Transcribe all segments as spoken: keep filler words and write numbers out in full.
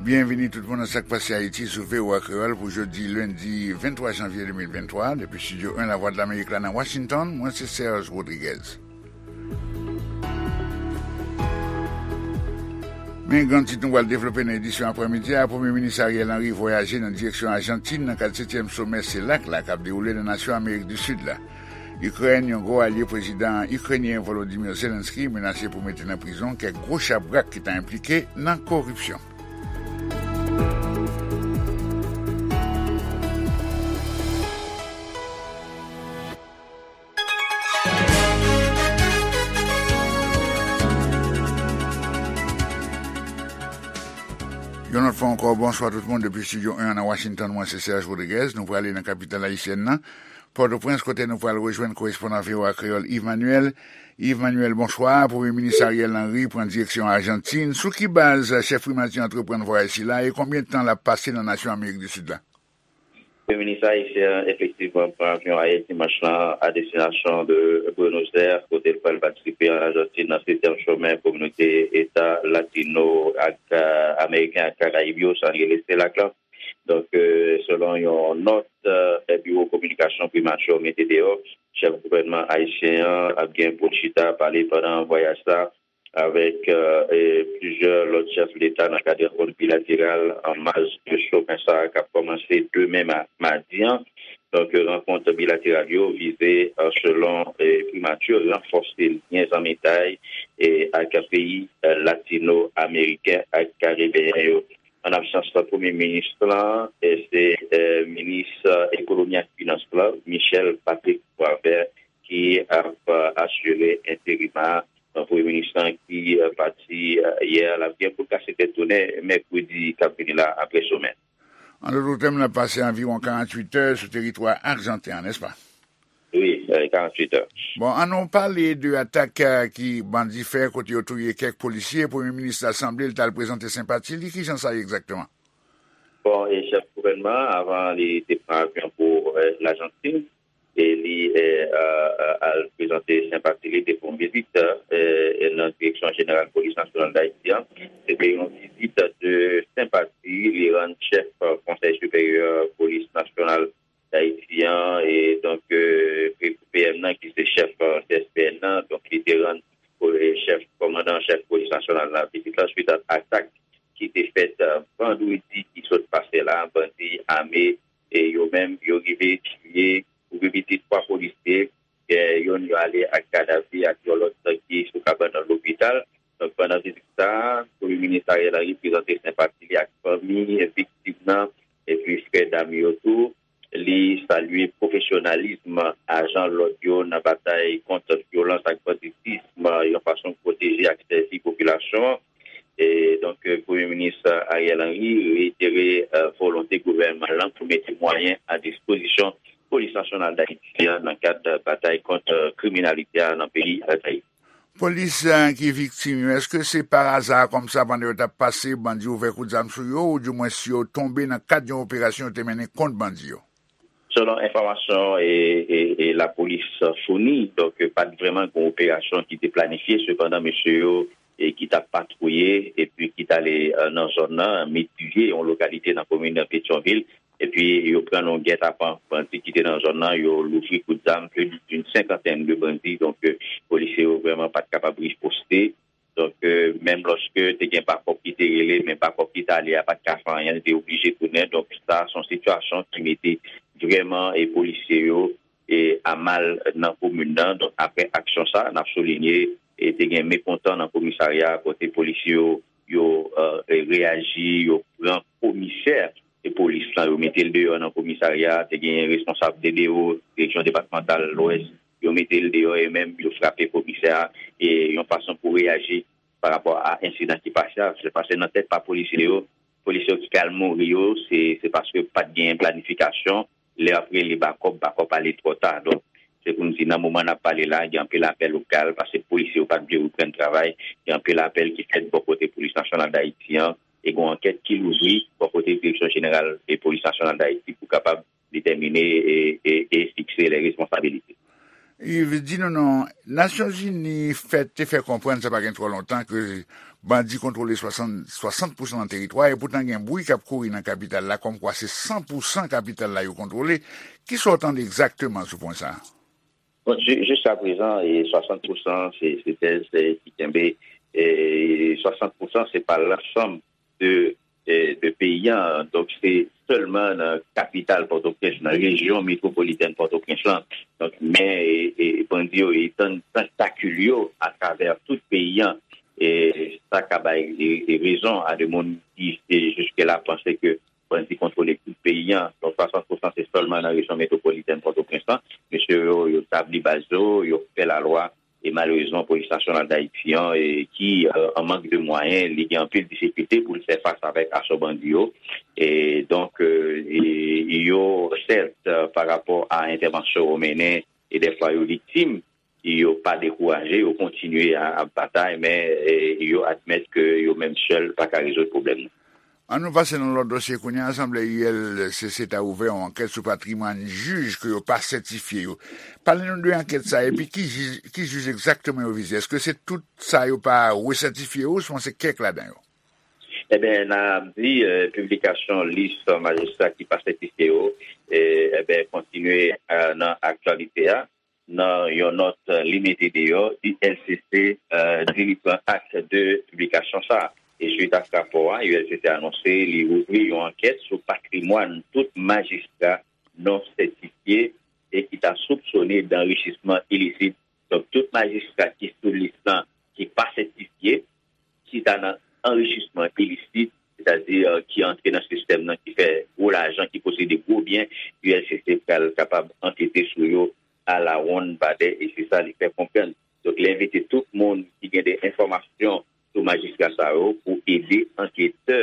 Byenvini tout moun nan Sa k Pase Ayiti sou V O A Kreyòl pou jodi lendi venntwa janvye de mil venntwa, depi estidyo en Lavwadlamerik la nan Washington, mwen se Serge Rodriguez. Men gran tit nou pral devlope nan edisyon aprèmidi a, Premye Minis Ariel Henry vwayaje nan direksyon Ajantin nan kad setyèm somè selak la k ap dewoule nan nasyon Amerik di Sid la. Ikrèn, yon gwo alye prezidan ikrenyen Volodymyr Zelensky, menase pou mete nan prizon kèk gwo chabrak ki ta enplike nan koripsyon. Yon lòt fwa ankò, bonswa tout moun depi estidyo en nan Washington, mwen se Serge Rodriguez. Nou prale nan kapital ayisyèn nan, Pòtoprens, kote nou pral rejwenn korespondan V O A Kreyòl Yves Manuel. Yves Manuel, bonswa. Premye Minis Ariel Henry pran direksyon Ajantin. Sou ki baz chèf primati antreprann vwayaj sila e konbyen tan l ap pase nan nasyon Amerik di Sid la? Premye Minis ayisyen an efektivman pran avyon ayè dimanch lan a destinasyon de Buenos Aires, kote l pral patisipe an Ajantin nan setyèm somè kominote eta latino ak, eh, ameriken ak karayib yo, sa n rele selak la. Donk, eh, selon yon nòt, eh, biwo kominikasyon primati a mete deyò, chèf gouvènman ayisyen an ap gen pou l chita pale pandan vwayaj sa avèk, eh, eh, plizyè lòt chèf leta nan kad rankont bilateral an maj de somè sa a k ap kòmanse demen ma-, madi an. Donk, rankont bilateral yo vize, eh, selon, eh, primati, ranfòse lyen zanmitay, eh, ak peyi, eh, latino-ameriken ak karibeyen yo. An absans premye minis lan, eh, se, eh, minis, eh, ekonomi ak finans lan, Michel Patrick Boisvert, ki ap, eh, asire enterim a. Donk, premye minis lan ki, eh, pati, eh, yè, l ap gen pou l kase tèt tounen mèkredi k ap vini la apre somè. An dòt tèm, l ap pase anviwon karanntuit è sou teritwa ajanten an, nèspa? Wi, eh, karanntuit è. Bon, ann nou pale de atak, eh, ki bandi fè kote yo touye kèk polisye. Premye minis la sanble l t al prezante senpati li. Kijan sa ye egzakteman? Bon, e chèf gouvènman an, avan li te pran avyon pou, eh, Lajantin, e li, eh, eh, eh, al prezante senpati li, te fè yon vizit, eh, nan direksyon jeneral polis nasyonal d Ayiti an. Se te yon vizit de senpati li rann chèf, eh, Konsèy Siperyè Polis Nasyonal d Ayiti an, e donk, eh, P M nan, ki se chèf, eh, C S P N nan, donk li te rann, eh, chèf, kòmandan chèf polis nasyonal la vizit la, swit a atak ki te fèt, eh, vandredi ki sot pase la, bandi ame, e yo menm, yo rive tiye pou pi piti twa polisye, eh, youn yo ale ak kadav li ak yon lòt ki sou kabann lopital. Donk, pandan vizit sa a, Premye Minis Ariel Henry prezante senpati li ak fanmi viktim nan, epi frè dam yo tou. Li salye pwofesyonalism ajan lòd yo nan batay kont vyolans ak banditism, yon fason pou pwoteje ak sèvi popilasyon an. E donk, Premye Minis Ariel Henry reyitere, eh, volonte gouvènman lan pou mete mwayen a dispozisyon Polis Nasyonal d Ayiti an nan kad batay kont, eh, kriminalite a nan peyi Dayiti. Polis, eh, ki viktim yo, èske se pa aza kòmsa pandan yo t ap pase, bandi ouvè kout zam sou yo, oudimwens yo tonbe nan kad yon operasyon yo te mennen kont bandi yo? Selon enfòmasyon e, e, e lapolis founi, donk, pa t vrèman gen yon operasyon ki te planifye, sepandan, mesye yo, e, ki t ap patwouye epi ki t ale, eh, nan zòn nan, Medivye, yon lokalite nan komin Petyonvil, epi yo pran nan yon gètapan bandi ki te nan zòn nan, yo louvri kout zam, plus d'une cinquantaine de bandits, donk, eh, polisye yo vrèman pa t kapab riposte. Donk, eh, menm lòske te gen bakòp ki te rele, men bakòp ki t ale a pa t ka fè anyen, li te oblije tounen. Donk, sa se yon sitiyasyon ki mete vrèman, eh, polisye yo, eh, a mal nan komin nan. Donk, apre aksyon sa, n ap soulinye, eh, te gen mekontan nan komisarya a kote polisye yo, yo, eh, reyaji, yo pran komisè e polis lan, yo mete l deyò nan komisarya a, te gen responsab D D O, Direksyon Depatmantal Lwès, yo mete l deyò e menm yo frape komisè a, e yon fason pou reyaji pa rapò a ensidan ki pase a. Se pase nan tèt pa polisye yo, polisye yo ki al mouri yo, se, se paske pa t gen planifikasyon. Lè y ap rele bakòp, bakòp ale twò ta. Donk, se pou n di, nan moman n ap pale la, gen anpil apèl ou k al, paske polisye yo pa t vle reprann travay. Gen anpil apèl ki fèt bò kote Polis Nasyonal d Ayiti an, e gen yon ankèt ki louvri bò kote Direksyon Jeneral e Polis Nasyonal d Ayiti pou kapab detèmine e, e, e fikse lè responsabilite. Yves, di nou non, Nasyonzini fè, te fè konprann sa pa gen twò lontan ke bandi kontwole swasant, swasant pousan nan teritwa, e poutan gen bri k ap kouri nan kapital la, kòmkwa se san pousan kapital la yo kontwole. Kisa w tande egzakteman sou pwen sa a? Bon, ju-, jiskaprezan, e, swasant pousan se, se tèz, e, ki kenbe, e, swasant pousan se pa lansanm de, e, de peyi a. Donk, se sèlman nan kapital Pòtoprens, nan rejyon metwopolitèn Pòtoprens lan. Donk, men, e, e, bandi yo etann tantakil yo atravè tout peyi a. E sa ka bay, e, e, rezon a de moun ki, e, jiske la panse ke bandi kontwole tout peyi a. Donk, swasant pousan se sèlman nan rejyon metwopolitèn Pòtoprens lan. Mesye yo, yo tabli baz yo, yo fè lalwa. E malerezman, Polis Nasyonal Dayiti an, e, ki, e, an mank de mwayen, li gen anpil difikilte pou l fè fas avèk asò bandi yo. E donk, e, e, yo, sèt, e, pa rapò a entèvansyon yo mennen, e dèfwa yo viktim, yo pa dekouraje, yo kontinye a, ap batay, men, e, yo admèt ke yo menm sèl pa ka rezoud pwoblèm nan. An nou pase nan lòt dosye kounye a, sanble U L C C ta ouvè yon ankèt sou patrimwàn jij ke yo pa sètifye yo. Pale nou de ankèt sa, epi ki jij, ki jij egzakteman yo vize? Èske se tout sa yo pa resètifye yo, ouswen se kèk ladan yo? Eben, n ap di, e, piblikasyon lis majistra ki pa sètifye yo, e, eben, kontinye, e, nan aktyalite a. Nan yon nòt li mete deyò, U L C C, e, di li pran ak de piblikasyon sa a. E swit ak rapò a, U L C C anonse li ouvri yon ankèt sou patrimwàn tout majistra non sètifye e ki ta soupsone danrichisman ilisit. Donk, tout majistra ki sou lis lan ki pa sètifye, ki ta nan anrichisman ilisit, sètadi, e, ki antre nan sistèm nan, ki fè gwo lajan, ki posede gwo byen, U L C C pral kapab ankete sou yo alawonnbadè, e se sa li fè konprann. Donk, li envite tout moun ki gen de enfòmasyon sou majistra sa yo pou ede anketè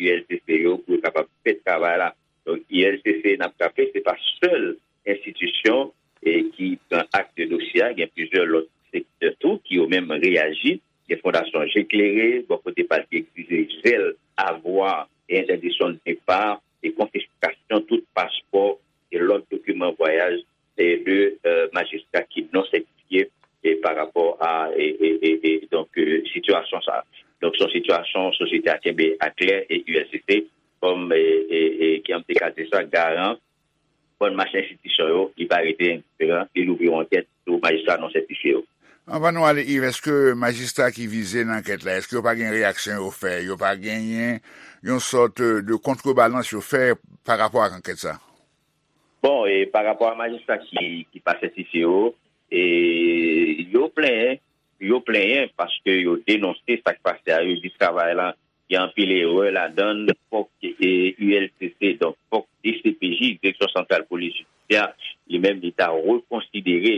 U L C C yo pou yo kapab fè travay la. Donk, U L C C, n ap raple, se pa sèl enstitisyon, e, ki pran ak de dosye a, gen plizyè lòt sektè tou ki yo menm reyaji. Gen Fondasyon Je Klere, bò kote pa l, ki egzije jèl avwa e entèdiksyon de depa e konfiskasyon tout paspò e lòt dokiman vwayaj, e de, e, majistra ki non sètifye, e pa rapò a, e, e, e, e, donk, e, sitiyasyon sa a. Donk, se yon sitiyasyon sosyete a kenbe aklè e U L C C, kòm, e, e, e, kòm te ka di sa, garan bòn mach enstitisyon yo, li pa rete endiferan, li louvri yon ankèt sou majistra non sètifye yo. Anvan nou ale, Yves, èske majistra ki vize nan ankèt la, èske yo pa gen reyaksyon yo fè, yo pa genyen yon sòt de kontrebalans yo fè pa rapò ak ankèt sa? Bon, e pa rapò a majistra ki, ki pa sètifye yo, e yo plenyen, yo plenyen paske yo denonse sa k pase a, yo di travay la, gen anpil erè ladan l, fòk, e, U L C C, donk fòk D C P J, Direksyon Santral Polis Jidisyè, li menm li ta rekonsidere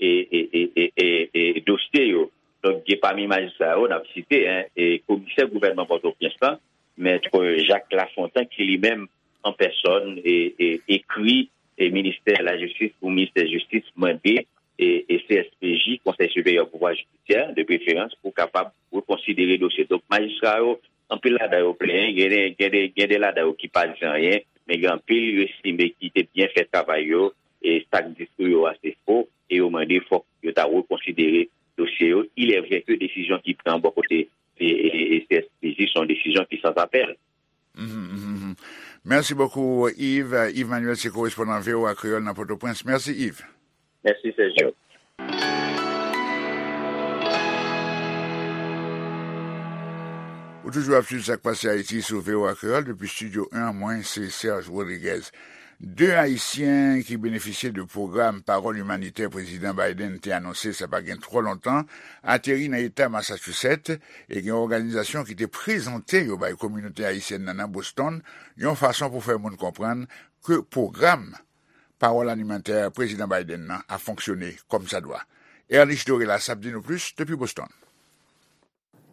e, e, e, e, e, e dosye yo. Donk, gen pami majistra yo, n ap site, en, e komisè gouvènman Pòtoprens lan, Mèt Jacques Lafontant, ki li menm, an pèsòn, e, e, ekri, e ministè lajistis pou ministè jistis mande, e, e C S P J, Konsèy Siperyè Pouvwa Jidisyè, de preferans, pou kapab rekonsidere dosye. Donk, majistra yo, anpil ladan yo plenyen, gen de, gen de, gen de ladan yo ki pa di anyen, men gen anpil yo estime ki te byen fè travay yo, e sa k di sou yo a se fo, e yo mande fòk yo ta rekonsidere dosye yo. Il est vrai que desizyon ki pran bò kote, e, e, e C S P J se yon desizyon ki sans apèl. Mhm, mhm, mhm. Mèsi bokou, Yves. Yves Manuel se korespondan V O A Kreyòl nan Pòtoprens. Mèsi, Yves. Mèsi, Sergio. Ou toujou ap swiv Sa k Pase Ayiti sou V O A Kreyòl depi Estidyo en an, mwen se Serge Rodriguez. De Ayisyen ki benefisye de pwogram Pawòl Imanitè Prezidan Biden te anonse sa pa gen twò lontan ateri nan eta Massachusetts, e gen òganizasyon ki te prezante yo bay kominote ayisyèn nan nan Boston, yon fason pou fè moun konprann ke pwogram Pawòl Imanitè Prezidan Biden nan ap fonksyone kòmsadwa. Erlich Dorelas ap di nou plis depi Boston.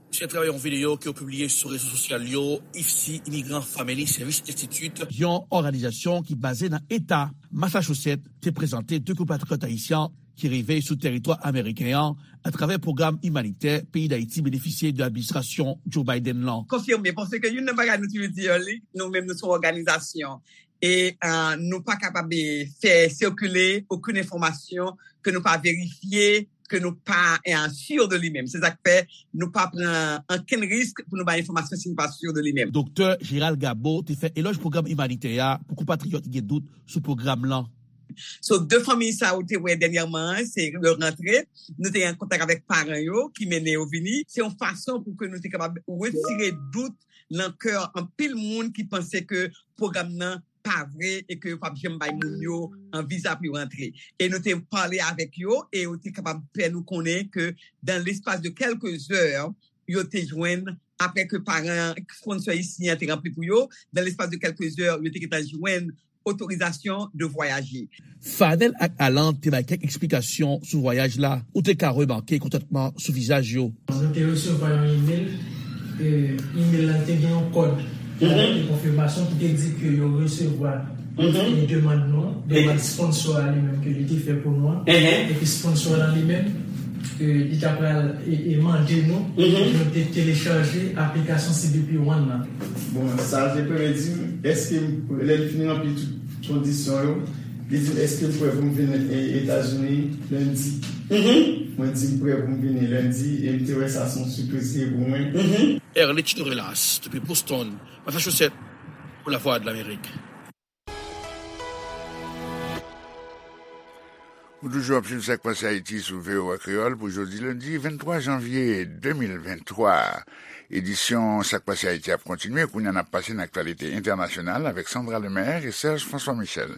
Se atravè yon videyo ke yo pibliye sou rezo sosyal yo, I F C, Immigrant Family Service Institute, yon òganizasyon ki baze nan eta Massachusetts, te prezante de konpatriyòt ayisyen ki rive sou tèritwa ameriken an atravè pwogram imanitè peyi Dayiti benefisye de administrasyon Joe Biden lan. Konfime, paske youn nan bagay nou toujou di yo, li, nou menm nou se yon òganizasyon. E, e, nou pa kapab, e, fè sikile okenn enfòmasyon ke nou pa verifye, ke nou pa eh, si de li menm. Se sa k fè nou pa pran ankenn risk pou nou bay enfòmasyon si nou pa si de li menm. Doktè Gérald Gabo te fè elòj pwogram imanitè a pou konpatriyòt ki gen dout sou pwogram lan. So, de fanmi sa ou te wè dènyèman an, se yo rantre, nou te an kontak avèk paran yo ki mennen yo vini. Se yon fason pou ke nou te kapab retire dout nan kè anpil moun ki panse ke pwogram nan pa vre e ke yo p ap janm bay moun yo an viza pou yo rantre. E nou te pale avèk yo e yo te kapab fè nou konnen ke dans l'espace de quelques heures, yo te jwenn, apre ke paran sponsor isi an te ranpli pou yo, dans l'espace de quelques heures, yo te gentan jwenn otorizasyon de voyaje. Fadel ak Alan te bay kèk eksplikasyon sou vwayaj la. Ou te ka remake kontantman sou vizaj yo. Nou te resevwa yon imèl. E, imèl la te gen yon kòd, yon kòd de konfimasyon ki te di ke yo resevwa e demann nou, demann sponsor a li menm ke li te fè pou nou an. Epi sponsor la li menm, e, li ta pral e, e mande nou pou nou te telechaje aplikasyon C B P One nan. Bon, sa te premye di m, èske m, lè l fin ranpli tout kondisyon yo, li di m, èske m prè pou m vin e, Etazini lendi? Mwen di m prè pou m vini lendi, e m te wè sa se yon sipriz li ye pou mwen. Erlich Norelas, depi Boston, Massachusetts, pou Lavwadlamerik. Ou toujou ap swiv Sa k Pase Ayiti sou V O A Kreyòl pou jodi lendi venntwa janvye de mil venntwa. Edisyon Sa k Pase Ayiti ap kontinye. Kounye a n ap pase nan aktyalite entènasyonal avèk Sandra Lemaire e Serge François Michel.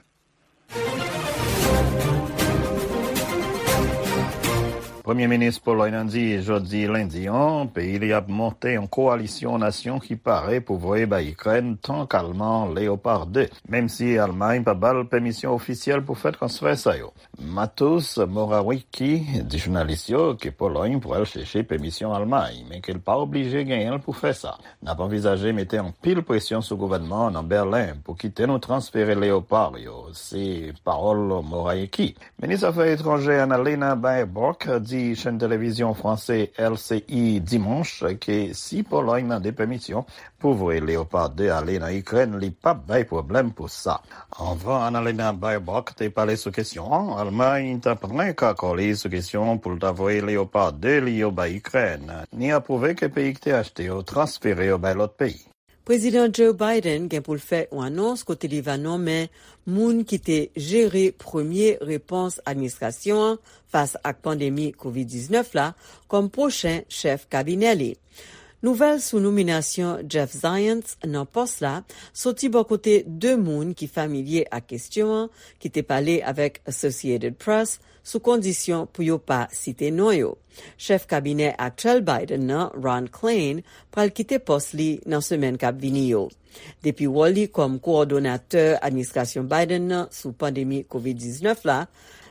Premye minis Polòy nan di jodi lendi an, peyi li ap monte yon kowalisyon nasyon ki pare pou voye bay Ikrèn tank alman Leopard de, menm si Almay pa ba l pèmisyon ofisyèl pou fè transfè sa yo. Mateusz Morawiecki di jounalis yo ke Polòy pral chèche pèmisyon Almay, men ke l pa oblije genyen l pou fè sa. N ap anvizaje mete anpil presyon sou gouvènman an nan Bèlen pou kite nou transfere Leopard yo, se pawòl Morawiecki. Minis afè etranjè Annalena Baerbock di chèn televizyon franse L C I dimanch ke si Polòy mande pèmisyon pou voye Leopard de ale nan Ikrèn, li p ap bay pwoblèm pou sa. Anvan Annalena Baerbock te pale sou kesyon an, Almay t ap renk akò li sou kesyon pou l ta voye Leopard de li yo bay Ikrèn, ni apwouve ke peyi ki te achte yo transfere yo bay lòt peyi. Prezidan Joe Biden gen pou l fè yon anons kote li va nonmen moun ki te jere premye repons administrasyon an fas ak pandemi kovid diznèf la kòm pwochen chèf kabinè li. Nouvèl sou nominasyon Jeff Zients nan pòs la soti bò kote de moun ki familye ak kesyon an, ki te pale avèk Associated Press sou kondisyon pou yo pa site non yo. Chèf kabinè aktyèl Biden nan, Ron Klain, pral kite pòs li nan semèn k ap vini yo. Depi wòl li kòm kowòdonatè administrasyon Biden nan sou pandemi kovid diznèf la,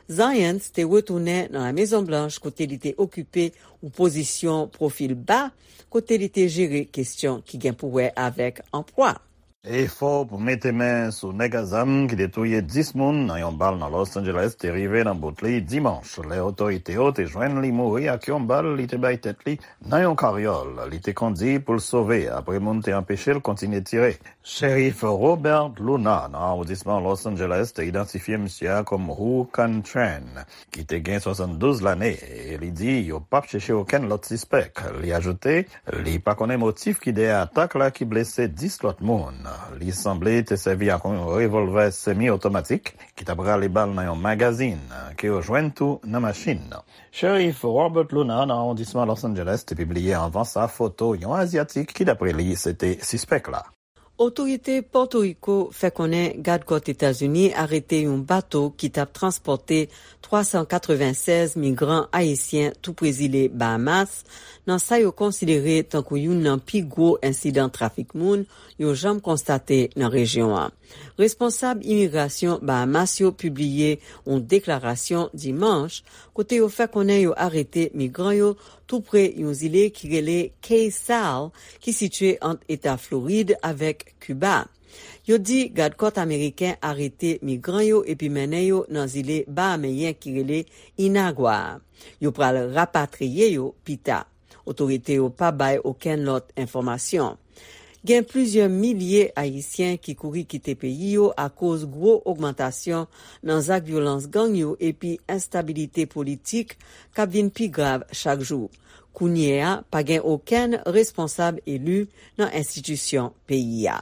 Zients te retounen nan La Mezon Blanch kote li te okipe yon pozisyon pwofil ba, kote li te jere kesyon ki gen pou wè avèk anplwa. Efò pou mete men sou nèg a zam ki te touye dis moun nan yon bal nan Los Angeles te rive nan bout li dimanch, lè otorite yo te jwenn li mouri ak yon bal li te bay tèt li nan yon karyòl li te kondi pou l sove apre moun te anpeche l kontinye tire. Sheriff Robert Luna nan awondisman Los Angeles te idantifye misye a kòm Hoo Can Tran, ki te gen swasanndouz lane, e li di yo p ap chèche okenn lòt sispèk. Li ajoute, li pa konnen motif ki dèyè atak la ki blese dis lòt moun. Li sanble te sèvi ak yon revòlvè semi otomatik ki t ap rale bal nan yon magazin, ke yo jwenn tou nan machin nan. Sheriff Robert Luna nan awondisman Los Angeles te pibliye anvan sa foto yon Azyatik ki, dapre li, se te sispèk la. Otorite Pòtoriko fè konnen gad kòt Etazini arete yon bato ki t ap transpòte twa san katrevennsèz migran ayisyen tou pre zile Bahamas, nan sa yo konsidere tankou youn nan pi gwo ensidan trafik moun yo janm konstate nan rejyon an. Responsab imigrasyon Bahamas yo pibliye yon deklarasyon dimanch kote yo fè konnen yo arete migran yo tou pre yon zile ki rele Cay Sal, ki sitye ant eta Florid avèk Kiba. Yo di gad kòt ameriken arete migran yo epi mennen yo nan zile bahameyen ki rele Inagua a. Yo pral rapatriye yo pita. Otorite yo pa bay okenn lòt enfòmasyon. Gen plizyè milye Ayisyen ki kouri kite peyi yo akoz gwo ogmantasyon nan zak vyolans gang yo epi enstabilite politik k ap vin pi grav chak jou. Kounye a, pa gen okenn responsab eli nan enstitisyon peyi a.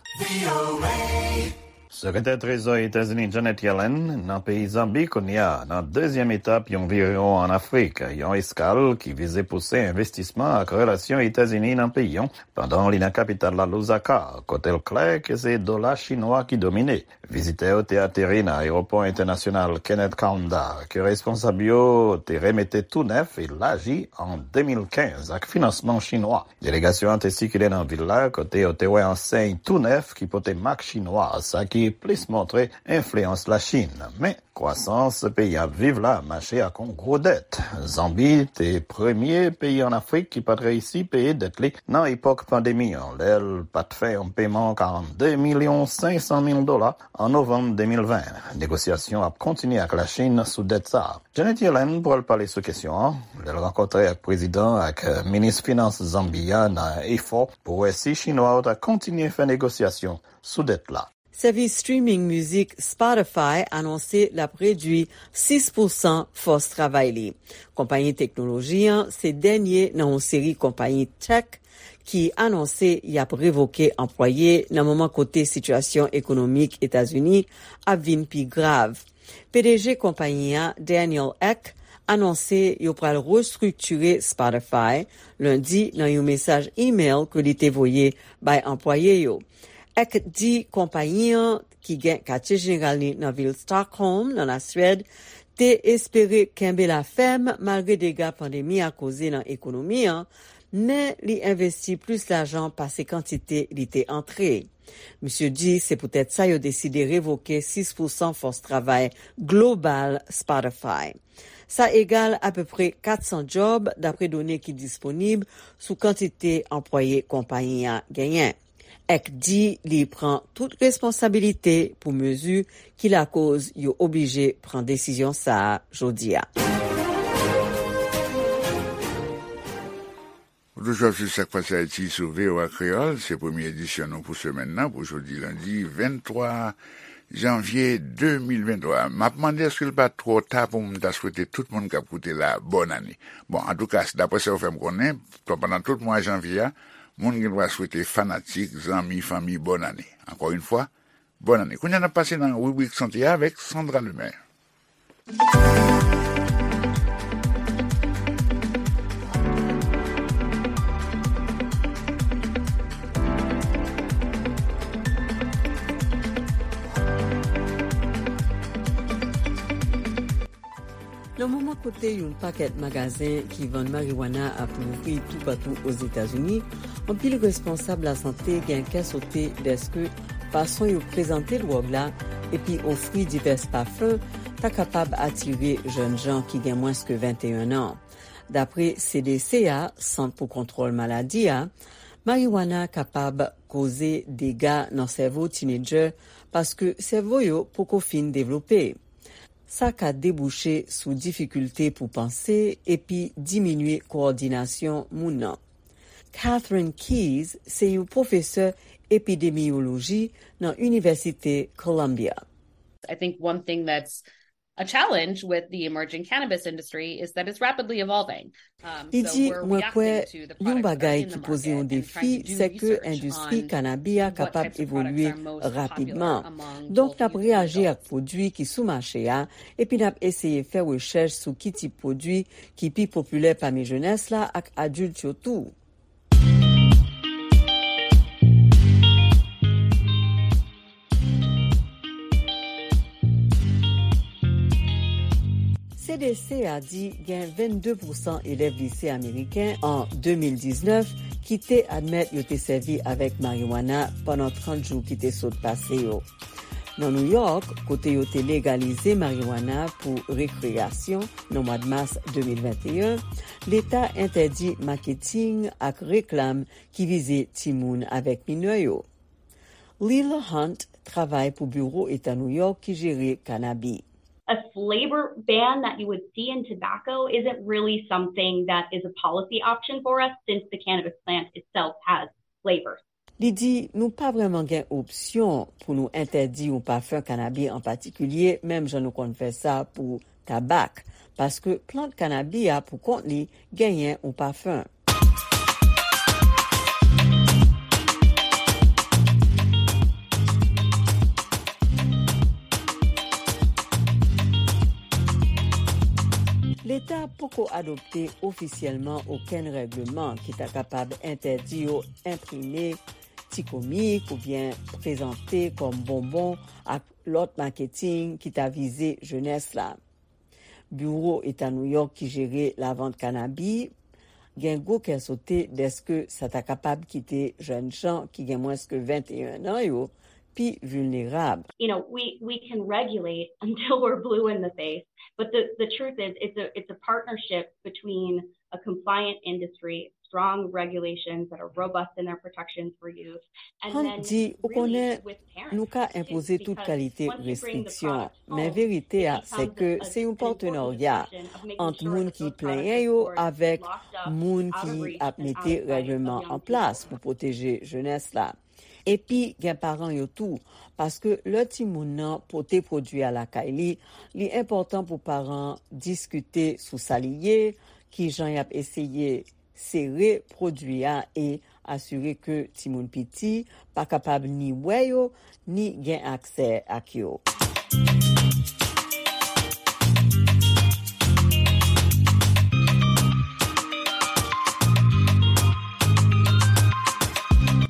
Sekretè Trezò Etazini Janet Yellen nan peyi Zanbi kounye a, nan dezyèm etap yon viyon ann Afrik, yon eskal ki vize pouse envestisman ak relasyon Etazini nan peyi an, pandan li nan kapital la Lusaka, kote l klè ke se dola chinwa ki domine. Vizitè yo te ateri nan ayewopò entènasyonal Kenneth Kaunda, ke responsab yo te remete tou nèf e laji an de mil kenz ak finansman chinwa. Delegasyon an te sikile nan vil la, kote yo te wè ansèy tou nèf ki pote mak chinwa, sa ki plis montre enfliyans Lachin. Men, kwasans peyi a ap viv la mache ak yon gwo dèt. Zanbi te premye peyi ann Afrik ki pa t reyisi peye dèt li nan epòk pandemi an, lè l pa t fè yon peman karannde milyon senk san mil dola an novanm de mil ven. Negosyasyon ap kontinye ak Lachin sou dèt sa a. Janet Yellen pral pale sou kesyon an lè l rankontre ak prezidan ak, eh, minis finans Zanbi a nan efò pou wè si chinwa yo ta kontinye fè negosyasyon sou dèt la. Sèvis streaming mizik Spotify anonse l ap redui sis pousan fòs travay li. Konpayi teknoloji an se dènye nan yon seri konpayi tech ki anonse y ap revoke anplwaye nan moman kote sitiyasyon ekonomik Etazini ap vin pi grav. P D G konpayi a, Daniel Ek, anonse yo pral restriktire Spotify lendi nan yon mesaj imèl ke li te voye bay anplwaye yo. Ek di konpayi an, ki gen katye jeneral li nan vil Stockholm, nan Laswèd, te espere kenbe la fèm malgre dega pandemi a koze nan ekonomi an, men li envesti plis lajan pase kantite li te antre. Misye di se poutèt sa yo deside revoke sis pousan fòs travay global Spotify. Sa egal apeprè kat san djòb, dapre done ki disponib sou kantite anplwaye konpayi a genyen. Ek di li pran tout responsabilite pou mezi ki lakoz yo oblije pran desizyon sa a jodi a. Ou toujou ap swiv Sa k Pase Ayiti sou V O A Kreyòl. Se premye edisyon nou pou semèn nan, pou jodi lendi venntwa janvye de mil venntwa. M ap mande èske l pa twò ta pou m ta swete tout moun k ap koute la bòn ane. Bon, antouka, daprè sa yo fè m konnen, pandan tout mwa janvye a, moun gen dwa swete fanatik, zanmi, fanmi bòn ane. Ankò yon fwa, bòn ane. Kounye a n ap pase nan ribrik sante a avèk Sandra Lemaire. Nan moman kote yon pakèt magazen ki vann mariwana ap louvri toupatou Ozetazini, anpil responsab lasante gen kè sote dèske fason yo prezante dwòg la epi ofri divès pafen ta kapab atire jèn jan ki gen mwens ke venteyen an. Dapre C D C a, Sant pou Kontwòl Maladi a, mariwana kapab koze dega nan sèvo tinedjè paske sèvo yo poko fin devlope. Sa ka debouche sou difikilte pou panse epi diminye kowòdinasyon moun nan. Catherine Keyes se yon pwofesè epidemiyoloji nan Inivèsite Columbia. I think one thing that's a challenge with the emerging cannabis industry is that it's rapidly evolving. Um, Li so di, we're mwen kwè reacting to the yon product that are bagay in the ki poze yon market and defi, trying to do se ke research endistri on kanabi a what kapab types of products evolye are most popular rapidman. Among Donk, both n ap youth and reyaji ak adults. Pwodui ki sou mache a, epi n ap eseye fè rechèch sou ki tip pwodui ki pi popilè pami jenès la ak adilt yo tou. C D C a di gen vennde pousan elèv lise ameriken an de mil diznèf ki te admèt yo te sèvi avèk mariwana pandan trant jou ki te sot pase yo. Nan New York, kote yo te legalize mariwana pou rekreyasyon nan mwa mas de mil venteyen, leta entèdi maketing ak reklam ki vize timoun avèk minè yo. Lila Hunt travay pou Biwo Eta New York ki jere kanabi. A flavor ban that you would see in tobacco isn't really something that is a policy option for us, since the cannabis plant itself has flavors. Li di nou pa vrèman gen opsyon pou nou entèdi yon pafen kanabi an patikilye, menm jan nou konn fè sa pou tabak, paske plant kanabi a pou kont li genyen yon pafen. Leta poko adopte ofisyèlman okenn règleman ki ta kapab entèdi yo enprime ti komik oubyen prezante kòm bonbon ak lòt maketing ki ta vize jenès la. Biwo Eta Nouyòk ki jere lavant kanabi gen gwo kè sote dèske sa ta kapab kite jèn jan ki gen mwens ke venteyen an yo pi vilnerab. You know, we, we can regulate until we're blue in the face, but the, the truth is it's a, it's a partnership between a compliant industry, strong regulations that are robust in their protections for youth, and Hunt then di, ou really konnen, with parents nou ka too, enpoze tout because kalite once you bring the restriksyon, product men home, verite it a, se becomes ke a, se yon an important partenarya discussion of making ant sure moun that ki those products plenyen are yo avèk locked up, moun out of ki reach, ap and mete out of sight of règleman young an plas people. Pou pwoteje jenès la. Epi gen paran yo tou, paske lè timoun nan pote pwodui a lakay li, li enpòtan pou paran diskite sou sa li ye, ki jan y ap eseye sere pwodui a e asire ke timoun piti pa kapab ni wè yo, ni gen aksè ak yo.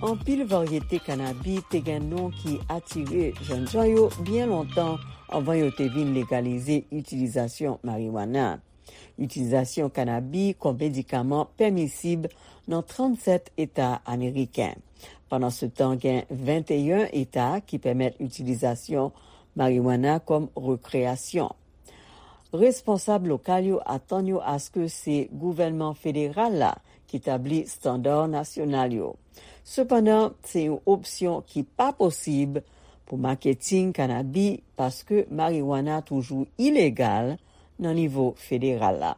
Anpil varyete kanabi te gen non ki atire jènjan yo byen lontan anvan yo te vin legalize itilizasyon mariwana. Itilizasyon kanabi kòm medikaman pèmisib nan trannsèt eta ameriken. Pandansetan, gen venteyen eta ki pèmèt itilizasyon mariwana kòm rekreyasyon. Responsab lokal yo atann yo aske se gouvènman federal la ki tabli estanda nasyonal yo. Sepandan, se yon opsyon ki pa posib pou maketing kanabi paske mariwana toujou ilegal nan nivo federal la.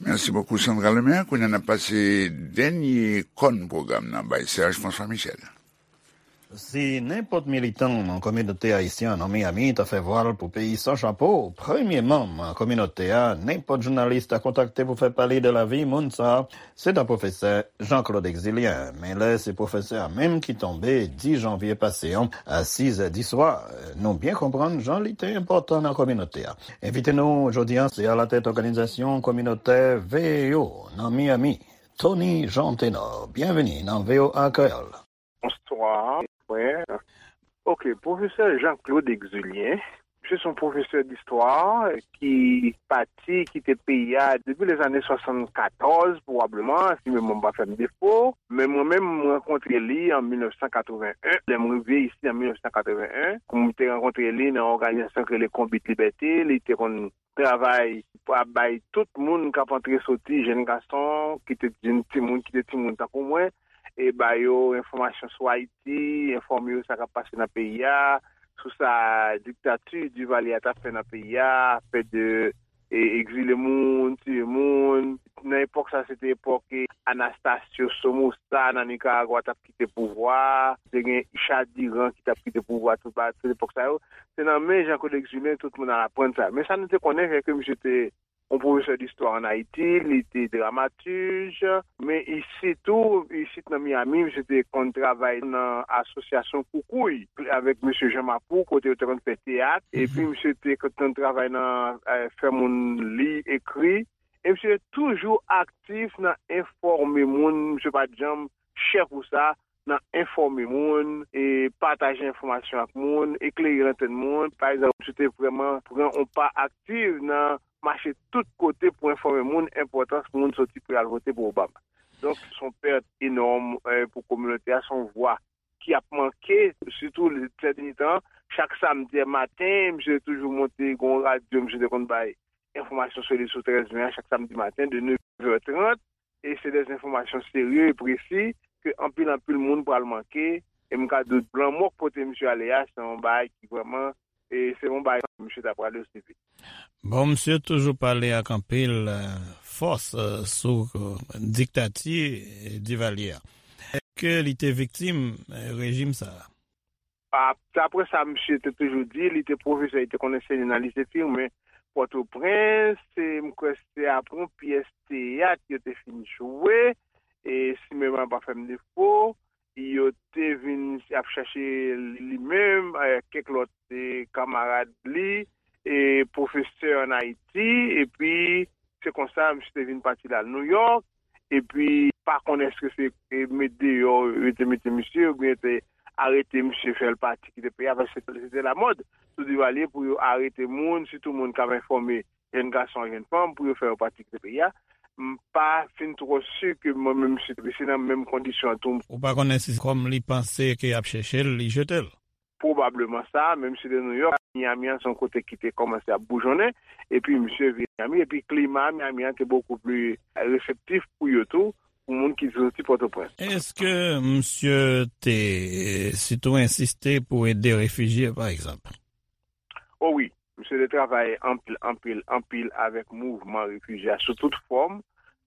Mèsi bokou, Sandra Lemaire. Kounye a n ap pase dènye kòn pwogram nan bay Serge François Michel. Si nenpòt militan nan kominote ayisyen nan Miami ta fè vwal pou peyi san chapo, premye manm kominote a, nenpòt jounalis ta kontakte pou fè pale de lavi moun sa a, se ta pwofesè Jean-Claude Exulien. Men lè se pwofesè a menm ki tonbe dis janvye pase an, a sizè di swa, nou byen konprann jan li te enpòtan nan kominote a. Envite nou jodi a, se alatèt òganizasyon kominotè V E O nan Miami, Tony Jean Tenor. Byenveni nan V O A Kreyòl. Bonswa, frè. Ok, pwofesè Jean-Claude Exulien, misye se yon pwofesè distwa ki pati kite peyi a depi lèzane swasannkatòz, pwobableman, si memwa m pa fè m defo. Men mwen menm, m rankontre li an mil nèf san katreven en, lè m rive isi an mil nèf san katreven en, m te rankontre li nan òganizasyon ki rele Konbit Libète, li te konn travay pou ap bay tout moun k ap antre soti, jèn gason, ki te jèn timoun, ki te timoun tankou mwen, e ba yo enfòmasyon sou Ayiti, enfòme yo sa k ap pase nan peyi a, sou sa diktati Duvalier a t ap fè nan peyi a, fè de, e, egzile moun, tiye moun. Nan epòk sa, se te epòk, e, Anastasio Somoza nan Nikaragwa t ap kite pouvwa a, te gen Ishak Diran ki t ap kite pouvwa a, tout ba, tout epòk sa yo. Se nan men Jean-Claude Exulien tout moun al aprann sa. Men sa nou te konnen, se ke misye te yon pwofesè distwa ann Ayiti, li te dramatij, men isit tou, isit nan Miami, misye te konn travay nan asosyasyon Koukouy avèk mesye Jean Mapou, kote yo te konn fè teyat, epi misye te konn travay nan, eh, fè moun li, ekri, e misye toujou aktif nan enfòme moun, misye pa t janm chè pou sa, nan enfòme moun, e pataje enfòmasyon ak moun, eklere lantèn moun. Pa egzanp, misye te vrèman pran yon pa aktif nan mache tout kote pou enfòme moun enpòtans moun soti pou y al vote pou Obama. Donk, se yon pèt enòm, eh, pou kominote a, se yon vwa ki ap manke, sitou sè dènye tan. Chak samdi maten, misye toujou monte, gen yon radyo, misye te konn bay enfòmasyon sou li sou trèz me a, chak samdi maten, de nèf è trant, e se de enfòmasyon serye e presi ke anpil, anpil moun pral manke, e m ka di w lanmò k pote misye ale a, se yon bagay ki vrèman, e se yon bagay misye ta prale osi vit. Bon, misye toujou pale ak anpil, eh, fòs, eh, sou, eh, diktati, eh, Divalye a. Èske li te viktim, eh, rejim sa a? A, daprè sa misye te toujou di, li te pwofesè, li te konn ansenye nan lise Firmin Pòtoprens, e m kwè se apre yon pyès teyat yo te fin jwe, e si memwa pa fè m defo, yo te vin ap chache li menm, eh, kèk lòt, eh, kamarad li, e pwofesè ann Ayiti, epi se konsa misye te vin pati l al Nouyòk, epi pa konnen èske se, eh, met deyò yo te mete misye, oubyen te arete misye, fè l pati kite peyi a, paske se te lamòd sou Divalye pou yo arete moun, sitou moun k ap enfòme jèn gason ak jèn fanm, pou yo fè yo pati kite peyi a. M pa fin twò si ke mwen menm misye te se nan menm kondisyon an tou. Ou pa konnen si kòm li panse ke y ap chèche l, li jete l? Pwobableman sa, menm si de Nouyòk, Miami an se yon kote ki te kòmanse ap boujonnen, epi misye vin Miami, epi klima Miami an te bokou pli reseptif pou yo tou, pou moun ki soti Pòtoprens. Èske misye te sitou ensiste pou ede refijye, pa egzanp? O wi, misye te travay anpil, anpil, anpil avèk mouvman refijye a sou tout fòm,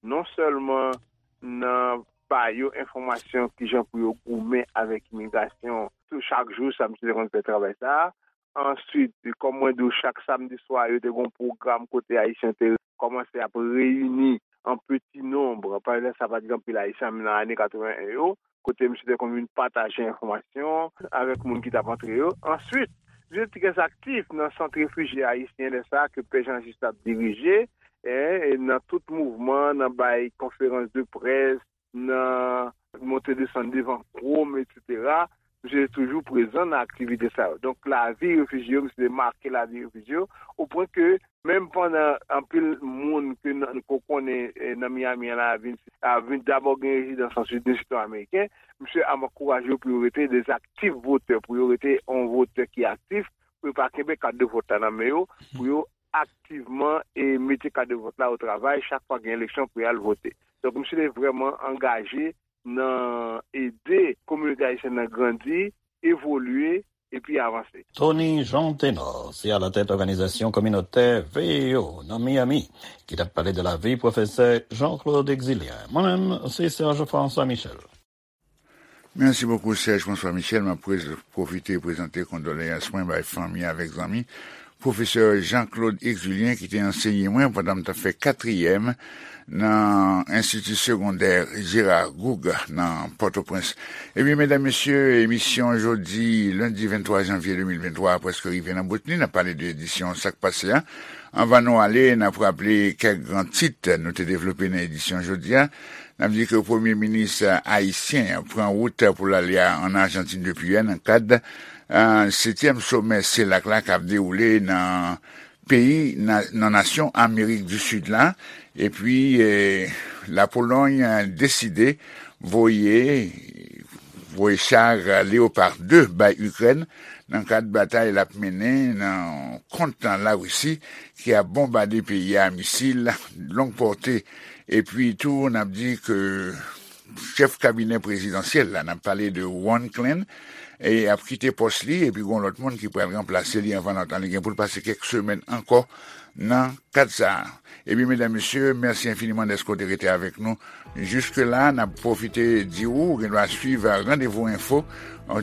non sèlman nan ba yo enfòmasyon kijan pou yo goumen avèk imigrasyon. Tou chak jou, sa misye te konn fè travay sa a. Answit, kòm mwen di w, chak samdi swa, yo te gen yon pwogram kote Ayisyen te kòmanse ap reyini an peti nonb. Pandan sa, pa t gen anpil Ayisyen nan ane katreven en yo, kote misye te konn vin pataje enfòmasyon avèk moun ki t ap antre yo. Answit, misye te trè aktif nan sant refijye ayisyen lè sa a ke Pè Jean Juste ap dirije, e, e nan tout mouvman, nan bay konferans de près, nan monte desann devan Chrome, etsetera. Misye te toujou prezan nan aktivite sa yo. Donk, lavi refijye yo, misye te make lavi refijye yo, o pwen ke menm pandan anpil moun ke n, ke w konnen, eh, nan Miami an la vin, a vin dabò gen rezidans, answit vin sitwayen ameriken, misye ap ankouraje yo pou yo rete de aktif votè, pou yo rete yon votè ki aktif, pou yo pa kenbe kat de vòt la nan men yo, pou yo aktivman e mete kat de vòt la o travay chak fwa gen eleksyon pou y al vote. Donk, misye te vrèman angaje nan ede kominote ayisyèn nan grandi, evolye, epi avanse. Tony Jean Ténor, se alatèt òganizasyon kominotè V E O nan Miami, ki t ap pale de lavi pwofesè Jean-Claude Exulien. Mwen menm, se Serge François Michel. Mèsi bokou, Serge François Michel. M ap prez-, pwofite prezante kondoleyans mwen bay fanmi avèk zanmi pwofesè Jean-Claude Exulien, ki te ansenye mwen pandan m t ap fè katriyèm nan Enstiti Segondè Gérard Gourgue nan Pòtoprens. Ebyen, medam, mesye, emisyon jodi, lendi venntwa janvye de mil venntwa a prèske rive nan bout li. N ap pale de edisyon Sa k Pase a. Anvan nou ale, n ap raple kèk gran tit nou te devlope nan edisyon jodi a. N ap di ke premye minis ayisyen an pran wout pou l ale a, ann Ajantin depi yè nan kad, eh, setyèm somè selak la k ap dewoule nan peyi, nan, nan nasyon Amerik di Sid la. Epi, eh, Lapolòy, eh, deside voye, voye cha Leopard de bay Ikrèn nan kad batay l ap mennen nan kont Larisi ki ap bonbade peyi a misil long pòte. Epi tou, n ap di ke chèf kabinè prezidansyèl la, n ap pale de Ron Klain, e ap kite pòs li, epi gon lòt moun ki pral ranplase li anvan lontan. Li gen pou l pase kèk semèn ankò nan kad sa a. Ebyen, medam, mesye, mèsi enfiniman dèske w te rete avèk nou jiske la. N ap pwofite di w, ou gen dwa swiv Randevou Enfo,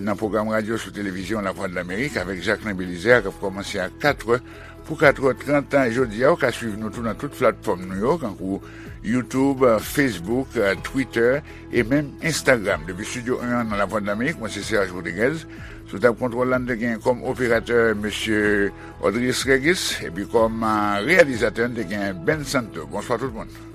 nan pwogram radyo sou televizyon Lavwadlamerik avèk Jacquelin Belizaire, k ap kòmanse a katrè pou katrè trant jodi a. Ou ka swiv nou tou nan tout platfòm nou yo, kankou YouTube, Facebook, Twitter e menm Instagram. Depi Estidyo en an nan Lavwadlamerik, mwen se Serge Rodriguez. Sou tab kontwòl la, n te gen kòm operatè mesye Audrius Régis, epi kòm, ah, reyalizatè, n te gen Ben Santo. Bonswa tout moun.